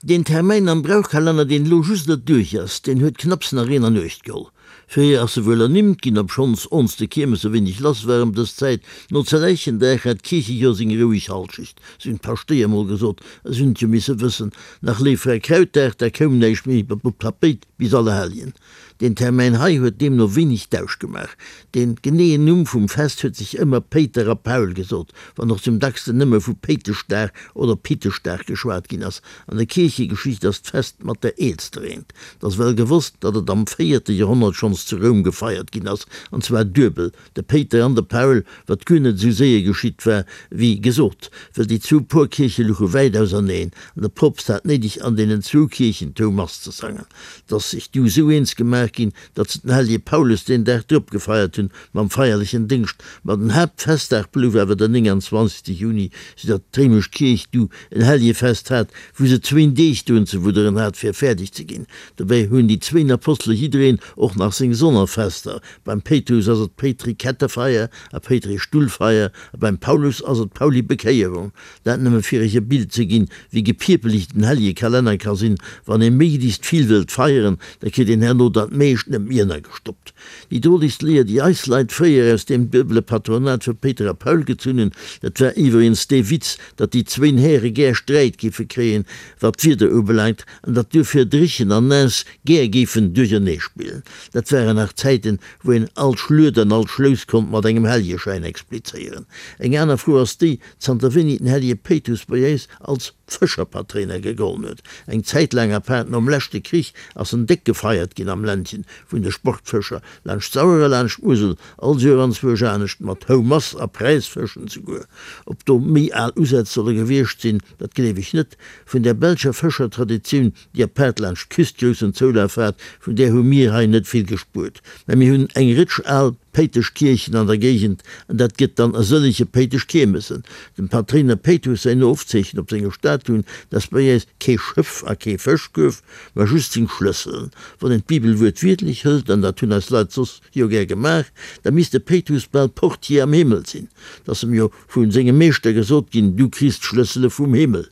Deen Termäin am Brauchkalenner, deen elo just net duerch ass, deen huet knapps nach een an Uecht geholl. Fréier ass se wuel ernimmt ginn, obschonns ons de Kiermes e wéineg lass war ëm dës Zäit. No Zerläichendag hat d'Kierchejoer seng roueg Halschecht, sou hunn d'Paschtéier mol gesot, a si hunn et jo misse wëssen. Nach Léiffräikrautdag, da koum näischt méi op d'Tapéit bis Allerhelljen. Deen Termäin hei huet deemno wéineg Dausch gemaach. Dee geneeën Numm vum Fest huet sech ëmmer Péiter a Paul gesot, wann och zum dacksten nëmme vu Péiteschdag oder Piteschdag geschwat ginn ass. An der Kierchegeschicht ass d'Fest mat der eelster eent. Et ass well gewosst, datt et am véierte Joerhonnert schonns zu Roum gefeiert ginn ass, an zwar duebel, De Péiter an de Paul, wat guer net esou séier geschitt war, wéi gesot, well déi zwou Porkierche luche wäit auserneen, an de Poopst hat néideg an deenen zwou Kierchen d'Houmass ze sangen. 't ass sech du esou eens gemaach ginn, datt se den hellege Paulus deen Dag drop gefeiert hunn, mam feierlechen Déngscht. Ma den Haaptfestdag blouf awer den 29. Juni, sou datt d'réimesch Kierch du en Hellegefest hat, wou se zwéin Deeg drun ze wudderen hat, fir fäerdeg ze ginn. Dobäi hunn déi zwéin Apostele jiddereen och nach seng Sonnerfester, Beim Péitrus ass et d'Péitri-Kettefeier a Péitri-Stullfeier a beim Paulus ass et d'Pauli-Bekéierung. Dat nëmme fir iech e Bild ze ginn, wéi gepiepeleg den hellege Kalenner ka sinn. Wann ee méiglechst vill wëllt feieren, da kritt een herno dat meescht net méi ënnergestoppt. Déi drolegst Léier, déi eis Leit fréier aus deem duebele Patronat vu Péiter a Paul gezunn hunn, dat war iwweregens dee Witz, datt déi zwéin Häre gär Sträit géife kréien, wat d'Wieder ubelaangt, an datt duerfir dréchen an naass gär géifen duerchernee spillen. Dat waren nach Zäiten, wou een all Schluet an all Schlouss konnt mat engem Helljeschäin explizéieren. Eng aner Fro ass déi, zanter wéini den Hellje Péitrus bei äis als Fëscherpatréiner gegollen huet. Eng Zäit laang, apaart nom leschte Krich, ass en déck gefeiert ginn am Ländchen vun de Sportfëscher, laanscht d'Sauer a laanscht d'Musel, all Joer anzwousch anescht, mat Houmass a Präisfëschen souguer. Ob do méi al Usätz solle gewiescht sinn, dat gleef ech net. Vun där belscher Fëschertraditioun, déi apaart laanscht d'Küst groussen Zoulaf hat, vun där hu mir hei net vill gespuert. Mä mir hunn eng Rëtsch al Péiteschkierchen an der Géigend, an dat gëtt dann e sëllege Péiteschkiermessen. Dem Patréiner Péitrus säin Ofzeechen op senger Statuen, dat ass bei äis kee Schëff a kee Fëschkuerf, mä just seng Schlësselen. Wann een d'Bibel wuertwiertlech hëlt, an dat hunn eis Leit soss jo gär gemaach, da misst de Péitrus bal Portier am Himmel sinn. 't ass em jo vu sengem Meeschter gesot ginn, Du kriss d'Schlëssele vum Himmel.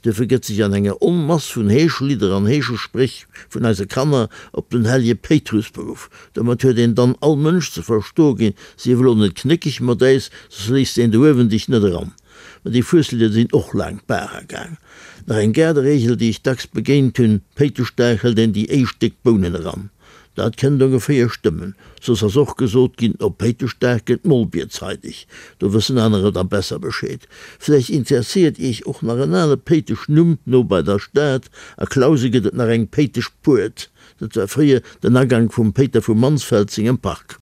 Duerfir gëtt sech an enger Onmass vun Heeschlidder an Heeschespréch vun eise Kanner op den hellje Péitrus beruff. Domat huet een dann all Mënsch ze verstoe ginn, Sief elo net knéckeg mat äis, soss léisst een do uewen dech net eran. Ma déi Fueslidder sinn och laang d'Bar agaang. Nach eng Gaarderegel, déi ech dacks begéint hunn, Péiteschdag hëlt een déi éischt déck Bounen eran. Dat kënnt ongeféier stëmmen. Soss ass och gesot ginn, op Péiteschdag gëtt d'Molbier zeideg. Do wëssen anerer da besser Bescheed. Vläicht interesséiert Iech och nach en ale Péiteschnumm no bei der Stad. A Clausen gëtt et nach eng Péiteschpuert. Dat war fréier den Agank vum Péiter vu Mansfeld sengem Park.